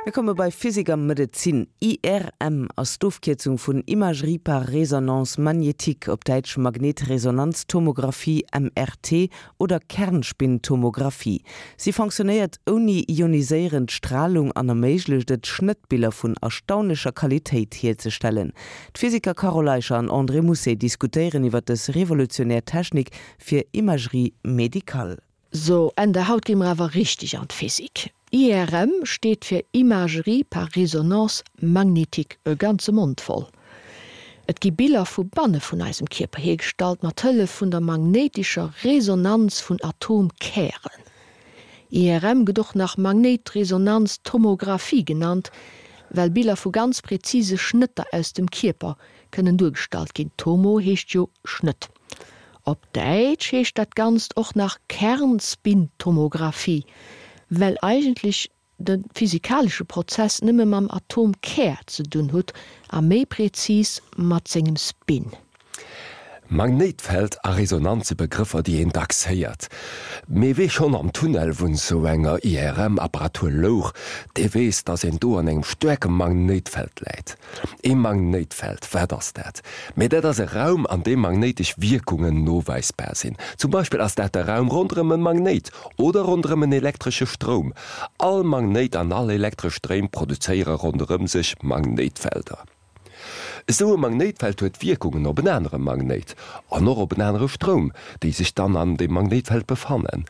Mir komme bei Physik a Medezin. IRM ass d'Ofkierzung vun Imagerie par résonance magnétique, op Däitsch Magnetresonanztomographie, MRT, oder Kernspintomographie. Si fonctionnéiert ouni ioniséierend Stralung an erméiglecht et, Schnëttbiller vun erstaunlecher Qualitéit hierzestellen. D'Physiker Carole Eicher an André Mousset diskutéieren iwwer dës revolutionär Technik fir Imagerie médicale. So, Ende, haut gi mer awer richteg an d'Physik. IRM steet fir Imagerie par résonance magnétique, e ganze Mond voll. Et gi Biller vu banne vun eisem Kierper hiergestallt mat Hëllef vun der magnéitescher Resonanz vun Atomkären. IRM gëtt och nach Magnéitresonanztomographie genannt, well Biller vu ganz präzise Schnëtter aus dem Kierper kënnen duergestallt ginn, Tomo heescht jo Schnëtt. Op Däitsch heescht dat Ganzt och nach Kernspintomographie, well eigentlech de physikalesche Prozess nëmme mam Atomkär ze dunn hutt a méi prezis mat sengem Spin. Magnéitfeld a Resonanz si Begrëffer, déi een dacks héiert. Mee wee schonn am Tunnel vun sou enger IRM-Apparatur louch, dee weess, dass een do an engem staarke Magnéitfeld läit. Ee Magnéitfeld, wat ass dat? Mee dat ass e Raum, an deem magnéitesch Wierkungen noweisbar sinn. Zum Beispill ass dat de Raum ronderëm e Magnéit oder ronderëm en elektresche Stroum. All Magnéit an all elektresch Stréim produzéiere ronderëm sech Magnéitfelder. Esou e Magnéitfeld huet Wierkungen op en anere Magnéit an och op en anere Stroum, déi sech dann an deem Magnéitfeld befannen.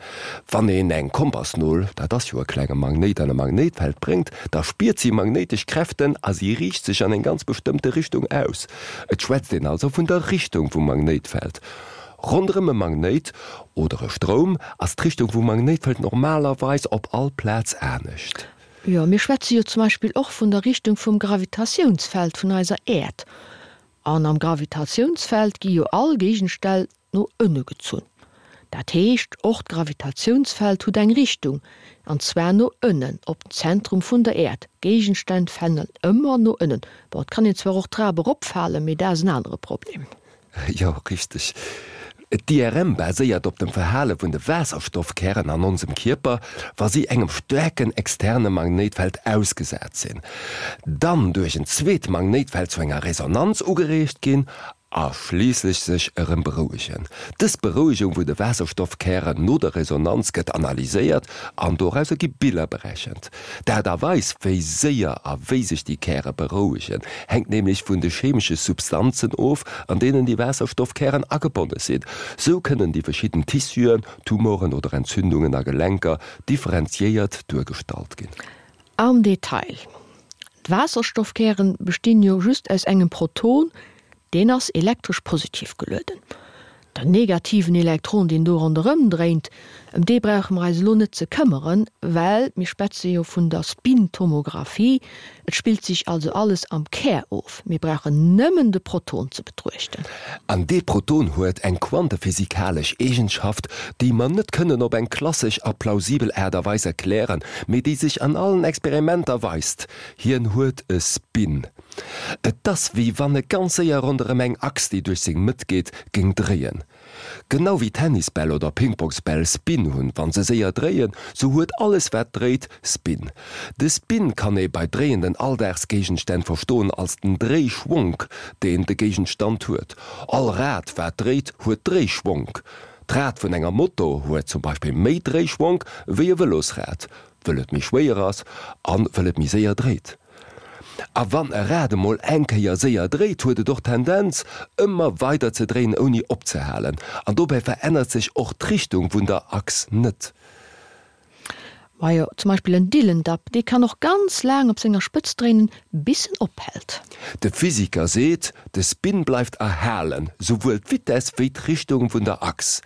Wann een eng Kompassnol, dat ass jo e klenge Magnéit, an e Magnéitfeld bréngt, da spiert si magnéitesch Kräften a si riicht sech an eng ganz bestëmmte Richtung aus. Et schwätzt een also vun der Richtung vum Magnéitfeld. Ronderëm e Magnéit oder e Stroum ass d'Richtung vum Magnéitfeld normalerweis op all Plaz anescht. Jo, mir schwätze jo zum Beispill och vun der Richtung vum Gravitatiounsfeld vun eiser Äerd. An am Gravitatiounsfeld gi jo all Géigenstänn no ënne gezunn. Dat heescht, och d'Gravitatiounsfeld hutt eng Richtung, an zwar no ënnen, op den Zentrum vun der Äerd. Géigenstänn falen ëmmer no ënnen. Bon, et kann een zwar och d'Trap eropfalen, mee dat ass en anere Problem. Jo, richteg. D'IRM baséiert op dem Verhale vun de Waasserstoffkären an onsem Kierper, wa si engem staarken externe Magnéitfeld ausgesat sinn, dann duerch en zweet Magnéitfeld zu enger Resonanz ugereegt ginn a schliisslech sech erëm berouegen. Dës Berouegung vun de Waasserstoffkären no der Resonanz gëtt analyséiert an dorauser gi Biller berechent. D'Aart a Weis, wéi séier a wéi sech déi Käre berouegen, hänkt nämlech vun de chemesche Substanzen of, an deenen déi Waasserstoffkären agebonne sinn. Sou kënnen déi verschidden Tissuen, Tumoren oder Entzündungen a Gelenker differenziéiert duergestallt ginn. Am Detail, D'Waasserstoffkären bestinn jo just aus engem Proton, deen ass elektresch positiv gelueden. Den negativen Elektron, deen do ronderëm dréint, ëm dee brauche mer eis elo net ze këmmeren, well mir schwätze jo vun der Spintomographie, et spillt sech also alles am Kär of, mir brauchen nëmmen de Proton ze betruechten. An dee Proton huet eng quantephysikalesch Eegenschaft, déi mer net kënnen op eng klassesch a plausibel Aart a Weis erklären, mee déi sech an allen Experimenter weist, Hien huet e Spin. Et ass wéi wann e ganz séier ronderëm eng Achs, déi duerch seng Mëtt geet, géing dréien. Genau wéi Tennisbäll oder Pingpongsbäll Spin hunn, wann se séier dréien, sou huet alles wat dréit Spin. De Spin kann ee bei dréienden Alldagsgéigenstänn verstoen als den Dréischwonk, deen de Géigenstand huet. All Rad wat dréit huet Dréischwonk. D'Rad vun enger Moto huet zum Beispill méi Dréischwonk wéi e Vëlosrad, wëll et méi schwéier ass an wëll et méi séier dréit. A wann e Rad emol eng Kéier séier dréit, huet et och d'Tendenz, ëmmer weider ze dréien ouni opzehalen. An dobäi verännert sech och d'Richtung vun der Achs net. Majo, zum Beispill en Dillendapp, dee kann och ganz laang op senger Spëtz dréinen, bis en ophält. De Physiker seet, de Spin bleift erhalen, souwuel d'Vitess wéi d'Richtung vun der Achs.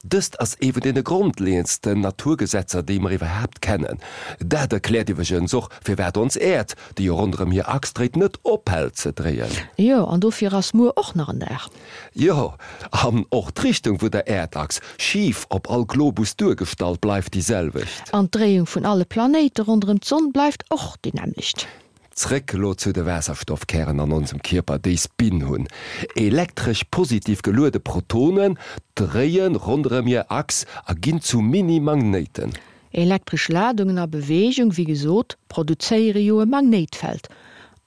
Dëst ass ee vun deene grondleeëndsten Naturgesetzer, déi mer iwwerhaapt kennen. Dat erkläert iwwregens och, firwat ons Äerd, déi jo ronderëm hir Achs dréit, net ophält ze dréien. Jo, an dofir ass muer och nach en Dag. Jo, an och d'Richtung vun der Äerdachs, schif op all Globus duergestallt, bleift déi selwecht. An d'Dréiung vun alle Planéite ronderëm d'Sonn bleift och déi nämmlecht. Zréck elo zu de Waasserstoffkären an onsem Kierper, déi Spin hunn. Elektresch positiv geluede Protonen dréie ronderëm hir Achs a ginn zu Mini-Magnéiten. Elektresch Ladungen a Beweegung, wéi gesot, produzéiere jo e Magnéitfeld.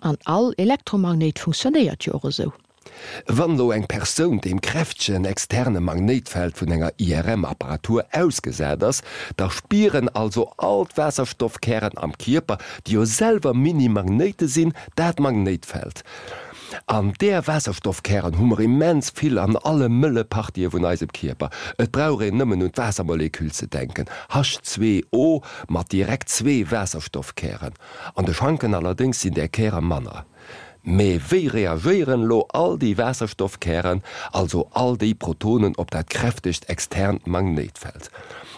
An all Elektromagnéit funktionéiert jo och esou. Wann elo eng Persoun deem kräftegen externe Magnéitfeld vun enger IRM-Apparatur ausgesat ass, da spieren also all d'Waasserstoffkären am Kierper, déi jo selwer Mini-Magnéite sinn, dat Magnéitfeld. An där Waasserstoffkären hu mer immens vill an alle mëlle Partië vun eisem Kierper. Et brauch een nëmmen un d'Waassermolekül ze denken, H2O mat direkt zwee Waasserstoffkären. An de Schanken allerdéngs sinn där Käre manner. Mee wéi reagéieren elo all déi Waasserstoffkären, also all déi Protonen op dat kräftegt externt Magnéitfeld?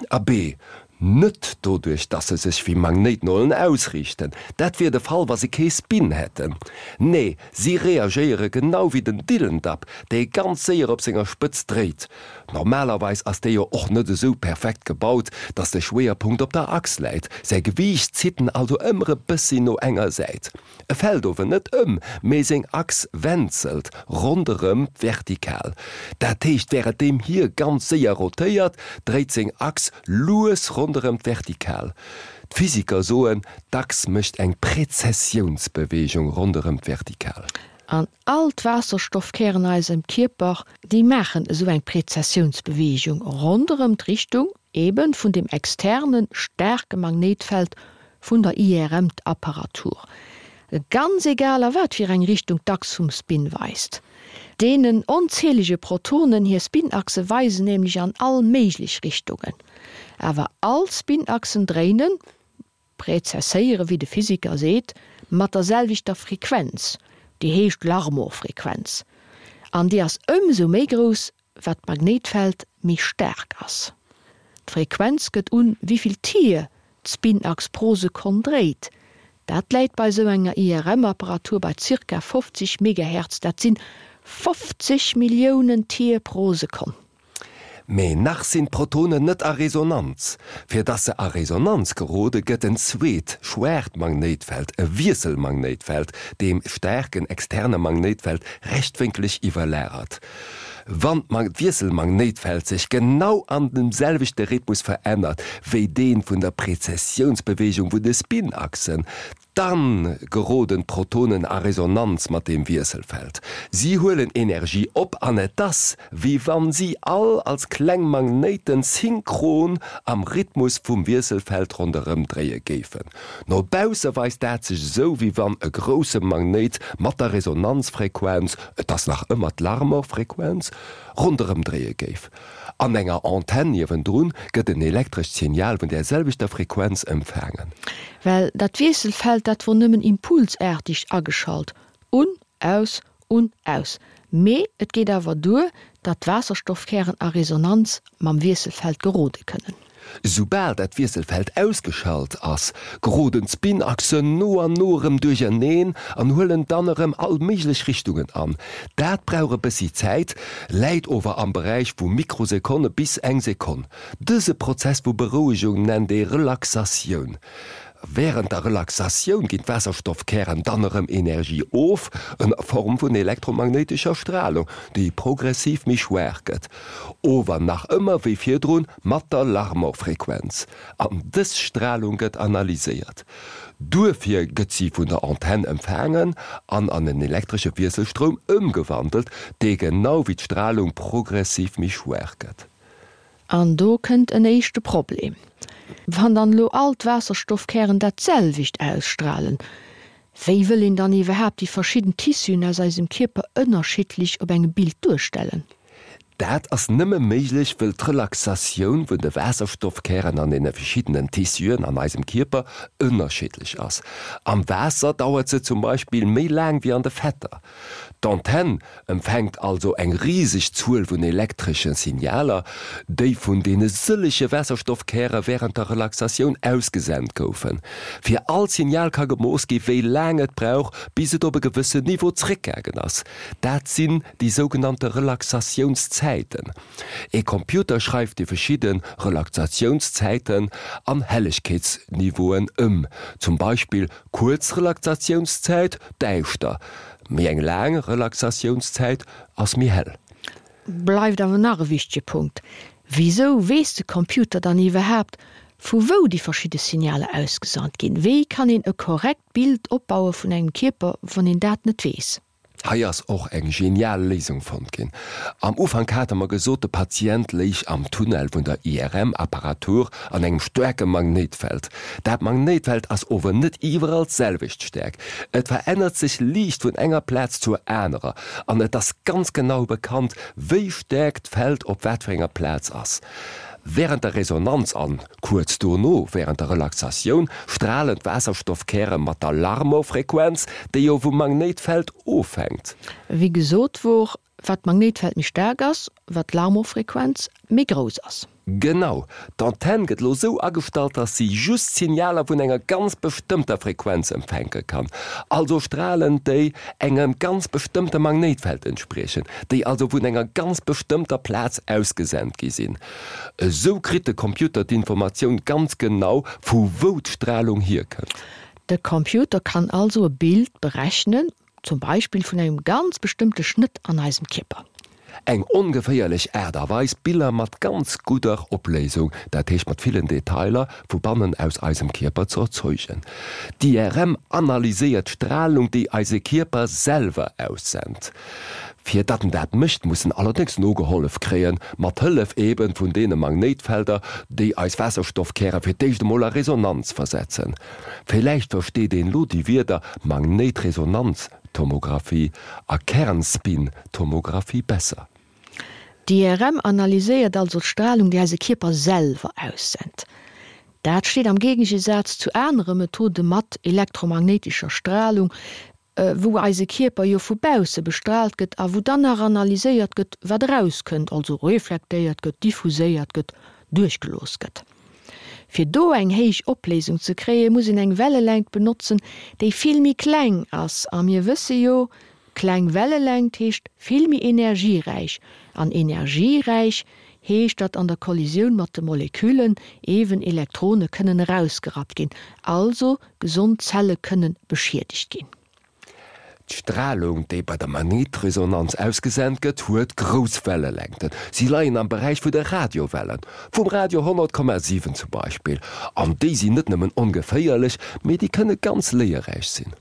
Abee, net doduerch, dass se sech wéi Magnéitnolen ausriichten, dat wier de Fall, wa se kee Spin hätten. Nee, si reagéiere genau wéi den Dillendapp, dee ganz séier op senger Spëtz dréit. Normalerweis ass dee jo och net esou perfekt gebaut, dass de Schwéierpunkt op der Achs läit, säi Gewiicht zitt en also ëmmer e bëssi no enger Säit. E fält ower net ëm, mee seng Achs wenzelt ronderëm d'Vertikal. Dat heescht, wärenddeem hie ganz séier rotéiert, dréit seng Achs lues ronderëm d'Vertikal. D'Physiker soen, d'Achs mécht eng Prezessiounsbeweegung ronderëm d'Vertikal. An all d'Waasserstoffkären a eisem Kierper, déi maachen esou eng Prezessiounsbeweegung ronderëm d'Richtung eben vun dem externe staarke Magnéitfeld vun der IRM-Apparatur, ganz egal a wat fir eng Richtung d'Achs vum Spin weist. Deenen onzählege Protonen hir Spinachse weisen nämlech an all méiglech Richtungen. Awer all Spinachsen dréinen, prezesséiere wéi de Physiker seet, mat der selwechter Frequenz, déi heescht Larmor-Frequenz, an déi ass ëmsou méi grouss, wat d'Magnéitfeld méi staark ass. D'Frequenz gëtt un, wéivill Tier d'Spinachs pro Sekonn dréit. Dat läit bei sou enger IRM-Apparatur bei zirka 50 Megahertz, dat sinn 50 Milliounen Tier pro Sekonn. Mee nach sinn d'Protonen net a Resonanz. Fir dass se a Resonanz gerode gëtt en zweet, schwaacht Magnéitfeld, e Wiesselmagnéitfeld, deem staarken externe Magnéitfeld rechtwénkeleg iwwerlagert. Wann d'Wiesselmagnéitfeld sech genau an dem selwechte Rhythmus verännert wéi dee vun der Prezessiounsbeweegung vun de Spinachsen, dann geroden d'Protonen a Resonanz mat deem Wiesselfeld. Si huelen Energie op an et ass, wéi wann si all als kleng Magnéiten synchron am Rhythmus vum Wiesselfeld ronderëm dréie géifen. No bausse weist dat sech esou, wéi wann e grousse Magnéit mat der Resonanzfrequenz, et ass nach ëmmer d'Larmor-Frequenz, ronderëm dréie géif. An enger Antenn niewendrun gëtt en elektrescht Signal vun där selwechter Frequenz empfaangen. Well dat Wiesselfeld, dat wor nëmmen impulsaartig ageschalt, un, aus, un, aus. Mee et geet awer duer, datt d'Waasserstoffkären a Resonanz mam Wiesselfeld gerode kënnen. Soubal dat Wiesselfeld ausgeschalt ass, geroden d'Spinachsen no an no erëm duercherneen an huelen dann erëm all méiglech Richtungen an. Dat brauch e bëssi Zäit, läit ower am Beräich vu Mikrosekonne bis eng Sekonn. Dëse Prozess vu Berouegung nennt ee Relaxatioun. Wärend der Relaxatioun ginn d'Waasserstoffkären dann erëm Energie of, ënner Form vun elektromagnéitescher Stralung, déi progressiv méi schwaach gëtt, ower nach ëmmer wéi virdrun mat der Larmor-Frequenz. An dës Stralung gëtt analyséiert. Duerfir gëtt si vun der Antenn empfaangen an an en elektresche Wiesselstroum ëmgewandelt, dee genau wéi d'Stralung progressiv méi schwaach gëtt. An do kënnt en éischte Problem. Wann dann elo all d'Waasserstoffkären dat selwecht ausstralen, wéi wëll een dann iwwerhaapt déi verschidden Tissuen aus eisem Kierper ënnerschiddlech op engem Bild duerstellen? Dat ass nëmme méiglech, wëll d'Relaxatioun vun de Waasserstoffkären an deene verschiddenen Tissuen an eisem Kierper ënnerschiddlech ass. Am Waasser dauert se zum Beispill méi laang wéi an de Fetter. D'Antenn empfänkt also eng riseg Zuel vun elektresche Signaler, déi vun deene sëllege Waasserstoffkäre wärend der Relaxatioun ausgesent goufen. Fir all Signal ka gemooss gi wéi laang et brauch, bis et op e gewëssen Niveau zréckgaangen ass. Dat sinn déi sougenannte Relaxatiounszäiten. E Computer schreift déi verschidde Relaxatiounszäiten an Hellegkeetsniveauen ëm, zum Beispill kuerz Relaxatiounszäit, däischter, Méi eng laang Relaxatiounszäit ass méi hell. Bleift awer nach e wichtege Punkt, Wisou weess de Computer dann iwwerhaapt, Vu wou déi verschidde Signaler ausgesant ginn? Wéi kann een e korrekt Bild opbaue vun engem Kierper, wann een dat net weess? Hei ass och eng genial Léisung fonnt ginn. Am Ufank hate mer gesot, de Patient léich am Tunnel vun der IRM-Apparatur an engem staarke Magnéitfeld. Dat Magnéitfeld ass ower net iwwerall d'selwecht staark. Et verännert sech liicht vun enger Plaz zur anerer an et ass ganz genau bekannt, wéi staark d'Feld op wat fir enger Plaz ass. Wärend der Resonanz an kuerz dono wärend der Relaxatioun stralen d'Waasserstoffkäre mat der Larmor-Frequenz, déi jo vum Magnéitfeld ofhänkt. Wéi gesot wor, wat d'Magnéitfeld méi staark ass, wat d'Larmor-Frequenz méi grouss ass. Genau! D'Antenn gëtt lo sou agestallt, dass si just Signaler vun enger ganz bestëmmter Frequenz empfänke kann, also Stralen, déi engem ganz bestëmmte Magnéitfeld entspriechen, déi also vun enger ganz bestëmmter Plaz ausgesent gi sinn. Esou kritt de Computer d'Informatioun ganz genau, vu wou d'Stralung hierkënnt. De Computer kann also e Bild berechnen, zum Beispill vun engem ganz bestëmmte Schnëtt an eisem Kierper. Eng ongeféierlech Aart a Weis, Biller mat ganz gudder Opléisung, dat heescht mat villen Detailer, vu bannen aus eisem Kierper ze erzeugen. D'IRM analyséiert d'Stralung, déi eise Kierper selwer aussent. Fir datt en dat mécht, muss en allerdéngs nogehollef kréien, mat Hëllef eben vun deene Magnéitfelder, déi eis Waasserstoffkäre fir d'éischt emol a Resonanz versetzen. Villäicht versteet een lo déi Wierder Magnéitresonanz Tomographie a Kernspin-Tomographie besser. D'IRM analyséiert also d'Stralung, déi eise Kierper selwer aussent. Dat steet am Géigegesaz zu anere Methode mat elektromagnéitescher Stralung, wou eise Kierper jo vu bausse bestraalt gëtt a wou dann nach analyséiert gëtt, wat erauskënnt, also reflektéiert gëtt, diffuséiert gëtt, duerchgelooss gëtt. Fir do eng héich Opléisung ze kréien, muss een eng Wellelängt benotzen, déi vill méi kleng ass. A mir wësse jo, kleng Wellelängt heescht vill méi energieräich. An energieräich heescht, datt an der Kollisioun mat de Moleküllen ewen Elektrone kënnen erausgerappt ginn, also gesond Zelle kënnen beschiedegt ginn. D'Stralung, déi bei der Magnetresonanz ausgesent gëtt, huet grouss Wellelängten. Si leien am Beräich vu de Radiowellen, vum Radio 100,7 zum Beispill. An déi sinn net nëmmen ongeféierlech, mee déi kënne ganz léierräich sinn.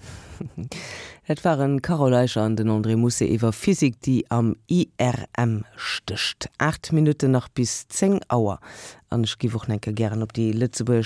Dat waren d'Carole Eicher an den André Mousset iwwer Physik, déi am IRM stécht. 8 Minutten nach bis 10 Auer. An ech géif och nach eng Kéier gären op déi lëtzebuergesch.